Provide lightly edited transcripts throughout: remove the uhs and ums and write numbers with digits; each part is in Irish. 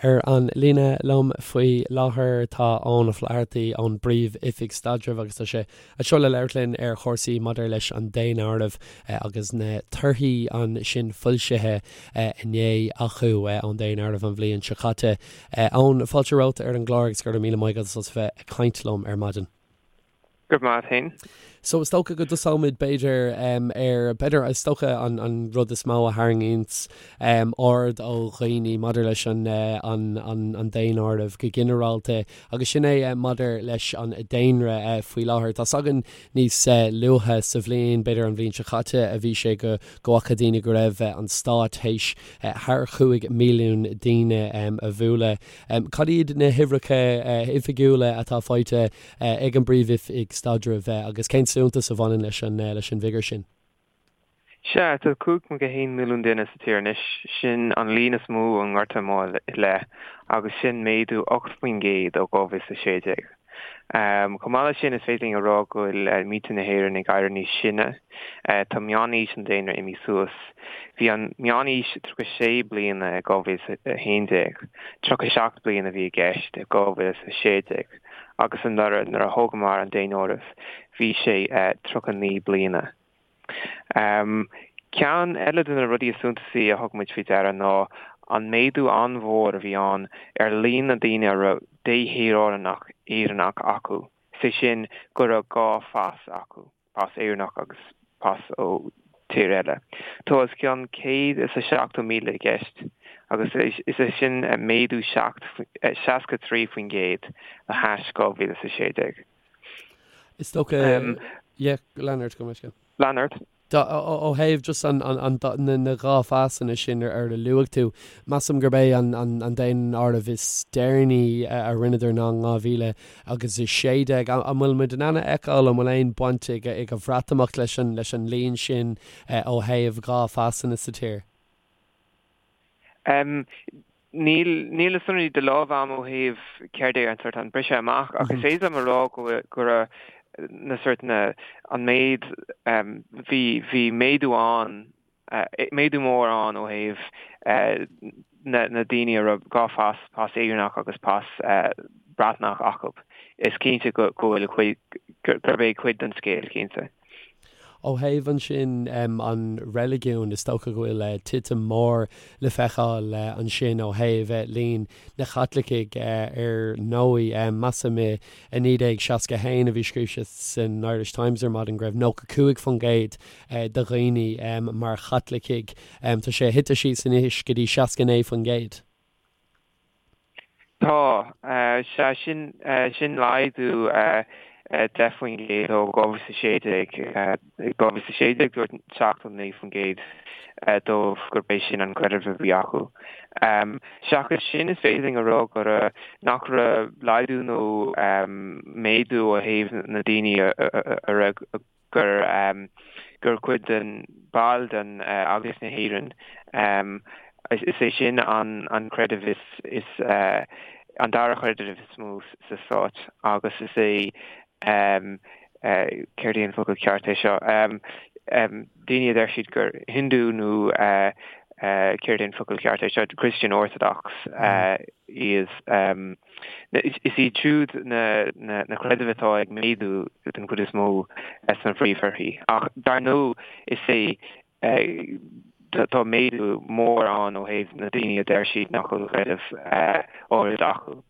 Ar an líne liom faoi láthair tá Eoin Ó Flathartaigh ón bPríomh-Oifig Staidrimh agus tá sé anseo le labhairt linn ar chúrsaí maidir leis an daonáireamh agus na torthaí ansin foilsithe inné acu ón daonáireamh an bhliain seo caite. Eoin, fáilte romhat ar an gclár agus go raibh míle maith agat as bheith ag caint liom ar maidin. Go raibh maith agat féin. So is dócha go dtosóimid b'fhéidir ar, b'fhéidir is dócha an an rud is mó a tharraingíonns aird ó dhaoine maidir leis an an an an daonáireamh go ginearálta agus sin é maidir leis an daonra faoi láthair. Tá's againn níos luaithe sa bhliain, b'fhéidir an bhliain seo caite a bhí sé go go bhfaca daoine go raibh an stát théis thar chúig mhilliún daoine a bhualadh. Cad iad na huimhreacha oifigiúla atá faighte ag an bPríomh-Oifig Staidrimh agus cén suntas a bhaineann leis an leis an bhfigiúr sin? Sea, tá 5.1 milliún duine sa tír anois, sin an líon is mó ón nGorta Mór i leith, agus sin méadú 8% ó 2016. Chomh maith leis sin, is féidir linn a rá go bhfuil muintir na hÉireann ag éirí níos sine. Tá meánaois an daonra imithe suas. Bhí an meánaois 36 bliana i 2011, 37 bliana a bhí i gceist i 2016. agus anuraidh nuair a thógamar an daonáireamh bhí sé 39 bliana. Ceann eile de na rudaí is suntasaí a thug muid faoi deara ná an méadú an-mhór a bhí ann ar líon na daoine a raibh déshaoránacht Éireannach acu, is é sin go raibh dhá phas acu. pas Éireannach agus pas ó tír eile. Tá os cionn 170,000 i gceist agus is é sin méadú 63% le hais 2016. Is dócha, yeah, lean ort, gabh mo leithscéal. Lean ort. Ó thaobh just an, an, na, na dhá phasanna sin ar a luaigh tú, measaim gurb é an, an, an daonáireamh is deireanaí a rinneadar ná in 2000 agus 16. An bhfuil muid in ann a fheiceáil an bhfuil aon baint ag an Bhreatimeacht leis an leis an líon sin ó thaobh dhá phasanna sa tír? Níl níl na sonraí de láimh agam ó thaobh céard é an sort an briseadh amach ach is féidir liom a rá go go raibh na sort na an méid bhí bhí méadú ann méadú mór ann ó thaobh na daoine a raibh dhá phas, pas Éireannach agus pas Breatnach acu. Is cinnte go bhfuil cuid, gurb é cuid den scéal, cinnte. Ó thaobh ansin an reiligiún, is dócha go bhfuil titim mór le feiceáil ansin ó thaobh líon na Chaitlicigh ar ndóigh. Measaim i 1961 a bhí scríofa san Irish Times ar maidin go raibh 95% de dhaoine mar Chaitlicigh. Tá sé thite síos anois go dtí 69%. Tá. Sea, sin, sin laghdú 10% ó 2016. I 2016 dúirt 79% dóibh gurb é sin an creideamh a bhí acu. Seachas sin, is féidir linn a rá go raibh, nach raibh laghdú nó méadú ó thaobh na daoine a raibh gur gur cuid den ball den Eaglais na hÉireann. Is é sin an an creideamh is is an dara chreideamh is mó sa stát agus is é céard é an focal ceart é seo daoine a deir siad gur Hindu nó céard é an focal ceart é seo Christian Orthodox iad. Is iad siúd na creidimh atá ag méadú den chuid is mó sna príomhthorthaí. Ach dar ndóigh is é tá méadú mór ann ó thaobh na daoine a deir siad nach bhfuil creideamh áirid acu.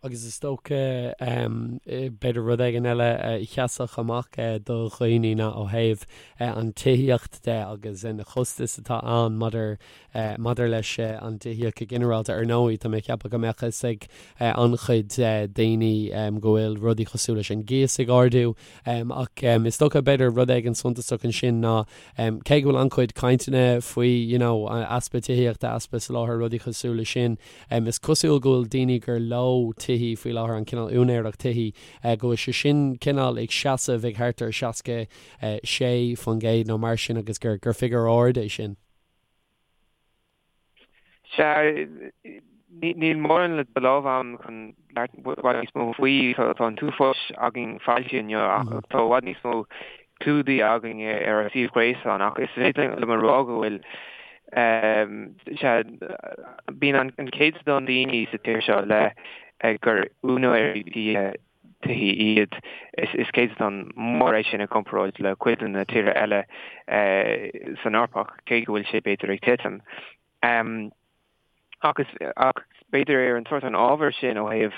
Agus is dócha, b'fhéidir rud éigin eile a sheasfadh amach do dhaoine ná ó thaobh an tithíocht de agus na costais atá ann maidir Maidir leis an dtithíocht go ginearálta, ar ndóigh, tá mé ag ceapadh go mbeadh fhios ag an-chuid daoine go bhfuil rudaí cosúil leis an gcíos ag ardú, ach is dócha, b'fhéidir, rud éigin suntasach ansin ná cé go bhfuil an-chuid cainteanna faoi you know easpa tithíochta, easpa soláthair, rudaí cosúil leis sin, is cosúil go bhfuil daoine gur leo tithí faoi láthair, an cineál úinéireacht tithí, go bhfuil sé sin cineál ag seasamh ag thart ar 66% nó mar sin agus gur figiúr ard é sin. Sea, níl mórán de láimh agam chun labhairt i bhfad níos mó faoi. Tá an t-uafás againn foilsithe inniu ach tá i bhfad níos mó clúdaithe againn ar ár suíomh gréasáin ach is féidir liom a rá go bhfuil. Sea, bíonn an céatadán daoine sa tír seo le gur úinéirí tithe tithí iad. Is céatadán mór é sin i gcomparáid le cuid de na tíortha eile san Eoraip, cé go bhfuil sé b'fhéidir ag titim. Ach ach b'fhéidir ar an sórt an ábhar sin ó thaobh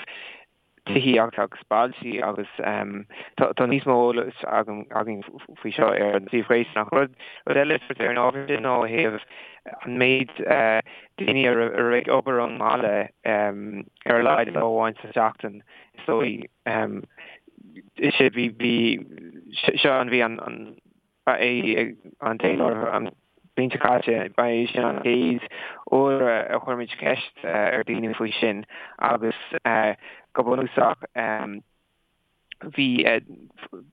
tithíocht agus bailte agus tá níos mó eolais againn faoi seo ar an suíomh gréasáin. Ach rud eile sórt ar an ábhar sin ná ó thaobh an méid daoine a raibh ag obair ón mbaile ar a laghad lá amháin sa tseachtain is dóigh. Is é bhí bhí seo an bhí an Ba é an daonáireamh an bhliain seo caite, ba é sin an chéad uair a chuir muid ceist ar dhaoine faoi sin agus go bunúsach bhí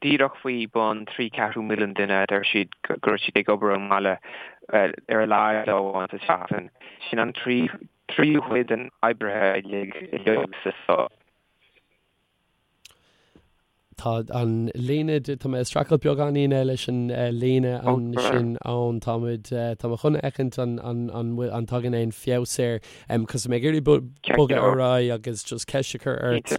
díreach faoi bun 3 ceathrú milliún duine a deir siad go raibh siad ag obair ón mbaile ar a laghad lá amháin sa tseachtain. Sin an tríú cuid den oibrithe uilig sa stát. Tá an líne, tá mé ag streachailt beagáinín leis an líne ansin ann. Tá muid, tá mé chun a fheicint an, an, an bhfuil, an dtagann aon feabhas air. Cos tá mé ag iarraidh bogadh ar aghaidh agus just ceist a chur ort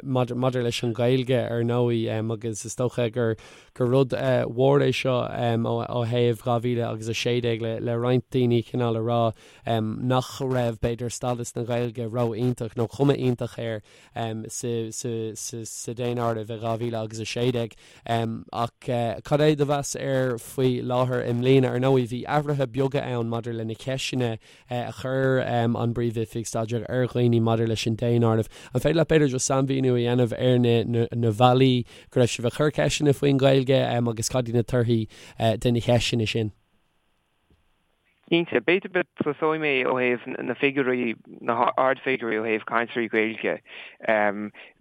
maidir, maidir leis an Ghaeilge ar ndóigh agus is dócha gur, gur rud mhór é seo ó, ó thaobh 2000 agus 16 le, le roinnt daoine cineál a rá nach raibh b'fhéidir stádas na Gaeilge ró-iontach nó cuma iontach air. sa daonáireamh i 2000 agus 16. Ach cad é do mheas air faoi láthair i mbliana? Ar ndóigh, bhí athruithe beaga ann maidir le na ceisteanna a chuir an bPríomh-Oifig Staidrimh ar dhaoine maidir leis an daonáireamh. An féidir leat b'fhéidir just sainmhíniú a dhéanamh ar na bealaí go raibh sibh ag cur ceisteanna faoin Ghaeilge agus cad iad na torthaí de na ceisteanna sin? Cinnte. B'fhéidir go dtosóidh mé ó thaobh na figiúirí, na hardfhigiúirí ó thaobh cainteoirí Gaeilge.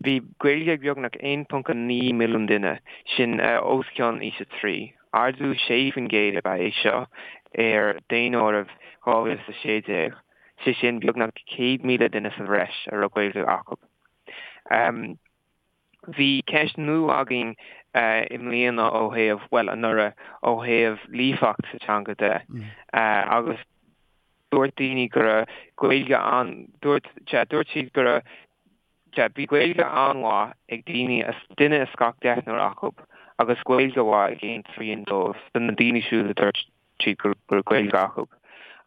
Bhí Gaeilge ag beagnach 1.9 milliún duine, sin os cionn aois 3. Ardú 6% ab ea é seo ar daonáireamh 2016, sé sin beagnach 100,000 duine sa bhreis a raibh Gaeilge acu. Bhí ceist nua againn i mbliana ó thaobh, bhuel, anuraidh, ó thaobh líofacht sa teanga de agus dúirt daoine go raibh Gaeilge an, dúirt, sea, dúirt siad go raibh, sea, bhí Gaeilge an-mhaith ag daoine, duine as gach deichniúr acu agus Gaeilge mhaith ag aon trian dóibh, de na daoine siúd a dúirt siad go raibh Gaeilge acu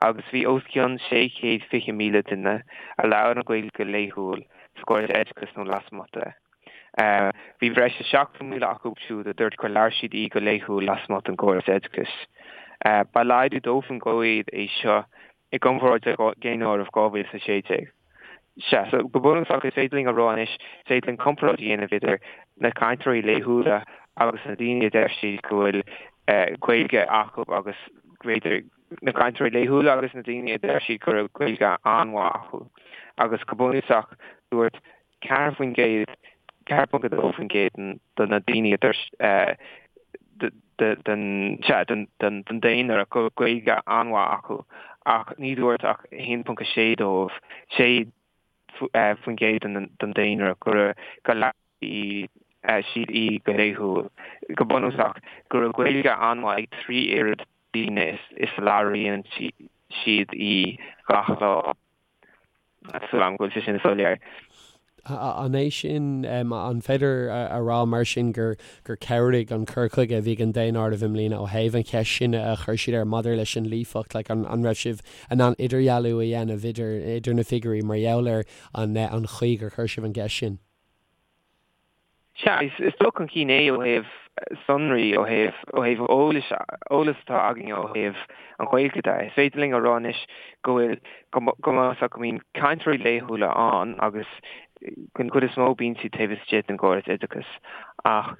agus bhí os cionn 620,000 duine a labhair an Ghaeilge go laethúil sa gcóras oideachais nó lasmuigh de. Bhí breis is 70,000 acu siúd a dúirt gur labhair siad í go laethúil lasmuigh den gcóras oideachais. Ba laghdú 2% é seo i gcomparáid le Daonáireamh 2016. Sea, so go bunúsach is féidir linn a rá anois, is féidir linn comparáid a dhéanamh idir na cainteoirí laethúla agus na daoine a deir siad go bhfuil Gaeilge acu agus b'fhéidir na cainteoirí laethúla agus na daoine a deir siad go raibh Gaeilge an-mhaith acu. Agus go bunúsach dúirt 4%, 4.2% de na daoine a dúirt den, sea, den daonra go raibh Gaeilge an-mhaith acu ach ní dúirt ach 1.6 dóibh, 6% den daonra go raibh, go labhair siad í go laethúil. Go bunúsach, go raibh Gaeilge an-mhaith ag 3 oiread daoine is a labhraíonn siad í gach lá. Súil agam go bhfuil sé sin soiléir. An é sin, an féidir a rá mar sin gur gur chabhraigh an cur chuige a bhí ag an daonáireamh i mbliana ó thaobh an cheist sin a chuir siad air maidir leis an líofacht, like an an raibh sibh in ann idirdhealú a dhéanamh idir idir na figiúirí mar gheall ar an an chaoi gur chuir sibh an gceist sin? Sea, is dul chun cinn é ó thaobh sonraí, ó thaobh, ó thaobh eolais, eolas atá againn ó thaobh an Ghaeilge de. Is féidir linn a rá anois go bhfuil, go, go mb'fhéidir go mbíonn cainteoirí laethúla ann agus den chuid is mó bíonn siad taobh istigh den gcóras oideachais ach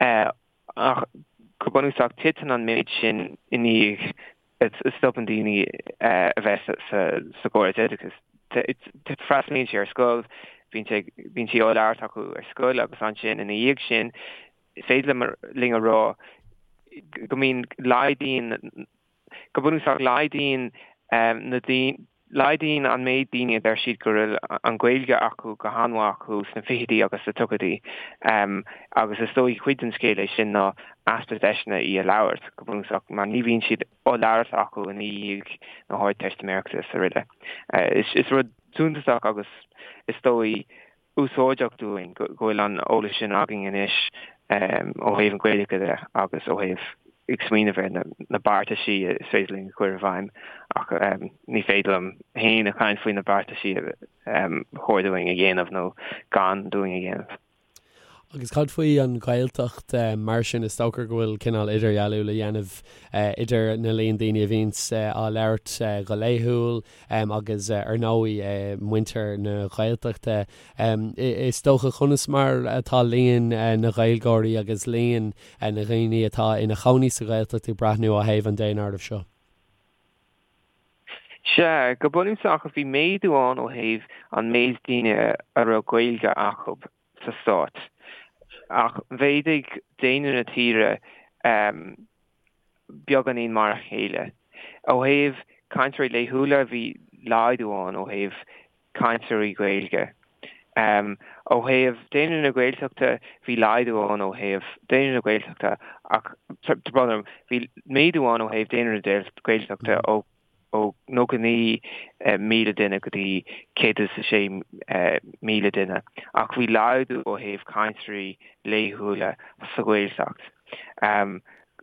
eh, ach go bunúsach titeann an méid sin i ndiaidh a stopann daoine a bheith sa gcóras oideachais. Freastalaíonn siad ar scoil, bíonn sí á labhairt acu ar scoil agus ansin ina dhiaidh sin is féidir linn a rá go mbíonn laghdaíonn, go bunúsach laghdaíonn na daoine. Laghdaíonn an méid daoine a deir siad go bhfuil an Ghaeilge acu go han-mhaith acu sna fichidí agus sna tríochaidí agus is dóigh cuid den scéal é sin ná easpa deiseanna í a labhairt, go bunúsach, mar ní bhíonn siad á labhairt acu i ndiaidh na hArdteistiméireachta is araile. Is rud suntasach agus is dóigh úsáideach dúinn go bhfuil an eolas sin againn anois ó thaobh an Ghaeilge de agus ó thaobh ag smaoineamh ar na beartaisí is féidir linn a chur i bhfeidhm ach ní féidir liom féin a chaint faoi na beartaisí a chóir dúinn a dhéanamh nó gan dúinn a dhéanamh. Agus cad faoi an Ghaeltacht mar sin? Is dócha go bhfuil cineál idirdhealú le dhéanamh idir na líon daoine a bhíonns á labhairt go laethúil agus ar ndóigh muintir na Gaeltachta. Is dócha conas mar atá líon na Gaeilgeoirí agus líon na ndaoine atá ina chónaí sa Ghaeltacht ag breathnú ó thaobh an daonáirimh seo? Sea, go bunúsach bhí méadú ann ó thaobh an méid daoine a raibh Gaeilge acu. sa stát. Ach mhéadaigh daonra na tíre beagáinín mar a chéile. Ó thaobh cainteoirí laethúla, bhí laghdú ann ó thaobh cainteoirí Gaeilge. Ó thaobh daonra na Gaeltachta, bhí laghdú ann ó thaobh daonra na Gaeltachta ach, tá brón orm, bhí méadú ann ó thaobh daonra na Gaeltachta ó ó 99,000 duine go dtí 106,000 duine, ach bhí laghdú ó thaobh cainteoirí laethúla sa Ghaeltacht.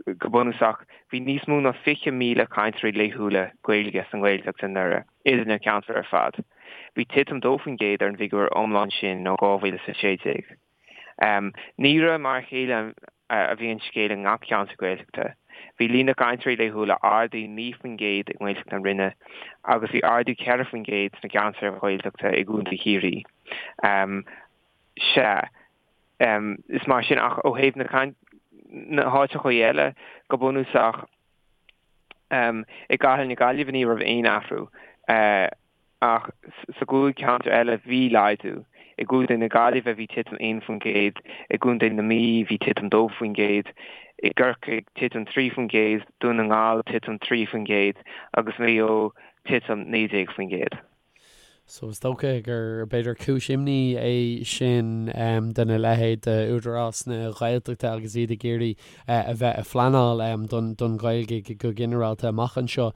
Go bunúsach, bhí níos mó ná 20,000 cainteoirí laethúla Gaeilge sa nGaeltacht anuraidh, idir na ceantair ar fad. Bhí titim 2% ar an bhfigiúr iomlán sin ó 2016. Ní raibh mar a chéile a bhí an scéal i ngach ceantar Gaeltachta. Bhí líon na gcainteoirí laethúla ardaithe 9% i nGaeltacht na Rinne agus bhí ardú 4% sna ceantair Ghaeltachta i gContae Chiarraí. Sea, is mar sin ach ó thaobh na háiteacha eile, go bunúsach, i gCathair na Gaillimhe ní raibh aon athrú. Ach sa gcúig cheantar eile bhí laghdú. I gContae na Gaillimhe bhí titim 1%, i gContae na Mí bhí titim 2%, i gCorcaigh titim 3%, Dún na nGall titim 3% agus Maigh Eo titim 19%. So is dócha gur b'fhéidir cúis imní é sin dona leithéid d'Údarás na Gaeltachta agus iad ag iarraidh a bheith ag pleanáil don Ghaeilge go ginearálta amach anseo.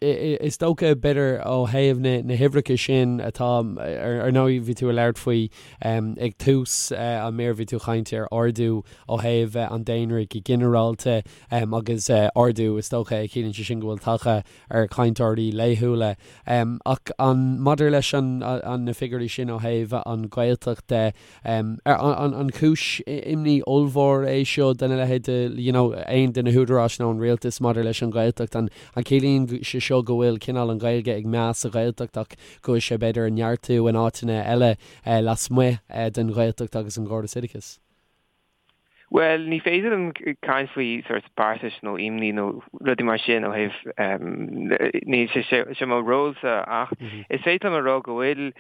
Is dócha, b'fhéidir, ó thaobh na huimhreacha sin atá, ar ndóigh, bhí tú ag labhairt faoi ag tús an mír, bhí tú ag caint ar ardú ó thaobh an daonra go ginearálta agus ardú, is dócha, a chiallaíonn sé sin go bhfuil tagtha ar chainteoirí laethúla. Ach an maidir leis an na figiúirí sin ó thaobh an Ghaeltacht de, an cúis imní ollmhór é seo dona leithéid de you know aon de na húdaráis nó an rialtas maidir leis an Ghaeltacht? An ciallaíonn sé seo go bhfuil cineál an Ghaeilge ag meath sa Ghaeltacht ach go bhfuil sé b'fhéidir ag neartú in áiteanna eile lasmuigh den Ghaeltacht agus an gcóras oideachais? Bhuel, ní féidir liom caint faoi sort beartais nó imní nó rudaí mar sin ó thaobh, níl sé sé mo rólsa ach is féidir liom a rá go bhfuil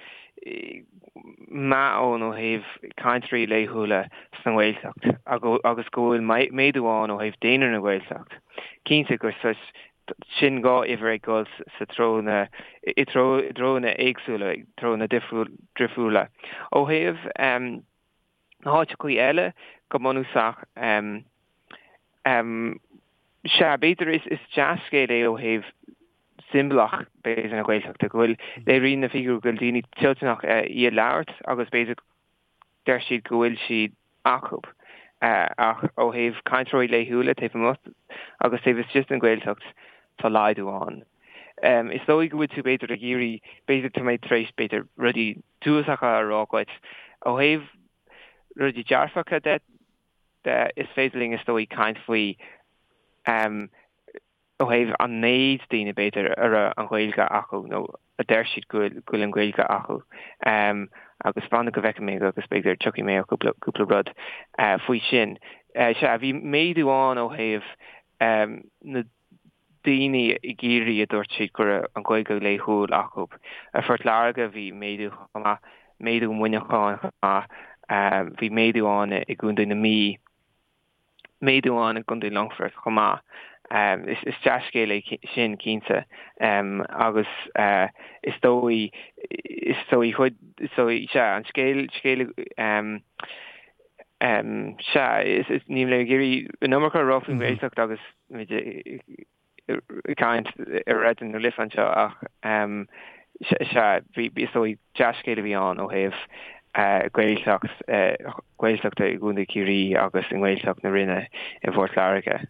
meath ann ó thaobh cainteoirí laethúla sa nGaeltacht agus go bhfuil méadú ann ó thaobh daonra na Gaeltacht. Cinnte gur sort sin dhá uimhir ag dul sa treo na, i dtreo, i dtreonna éagsúla, i dtreonna difriúla. Ó thaobh. Na háiteachaí eile, go bunúsach, sea, b'fhéidir is dea-scéal é ó thaobh siombalach, b'fhéidir, na Gaeltachta, go bhfuil, léiríonn na figiúirí go bhfuil daoine toilteanach í a labhairt agus b'fhéidir deir siad go bhfuil sí acu. Ach ó thaobh cainteoirí laethúla taobh amuigh agus taobh istigh den Ghaeltacht, tá laghdú ann. Is dóigh go bhfuil tú b'fhéidir ag iarraidh, b'fhéidir tá mé tar éis b'fhéidir rudaí diúltacha a rá dhuit. Ó thaobh rudaí dearfacha de, is féidir linn is dóigh caint faoi ó thaobh an méid daoine b'fhéidir a raibh an Ghaeilge acu nó a deir siad go bhfuil an Ghaeilge acu. Agus fan go bhfeicfidh mé agus b'fhéidir tiocfaidh mé ar chúpla rud faoi sin. Sea, bhí méadú ann ó thaobh na daoine i gCiarraí a dúirt siad go raibh an Ghaeilge laethúil acu. I Phort Láirge bhí méadú chomh maith, méadú i Muineachán chomh maith, bhí méadú ann i gContae na Mí, méadú ann i gContae Longfoirt chomh maith. Is dea-scéal é sin cinnte agus is dóigh, is dóigh chuid, is dóigh, sea, an scéal, scéal, sea, is, níl mé ag iarraidh an iomarca a rá faoin nGaeltacht agus muid ag caint ar Raidió na Life anseo ach sea, bhí, is dóigh, dea-scéal a bhí ann ó thaobh Gaeltacht, Gaeltachta i gContae Chiarraí agus i nGaeltacht na Rinne i bPort Láirge.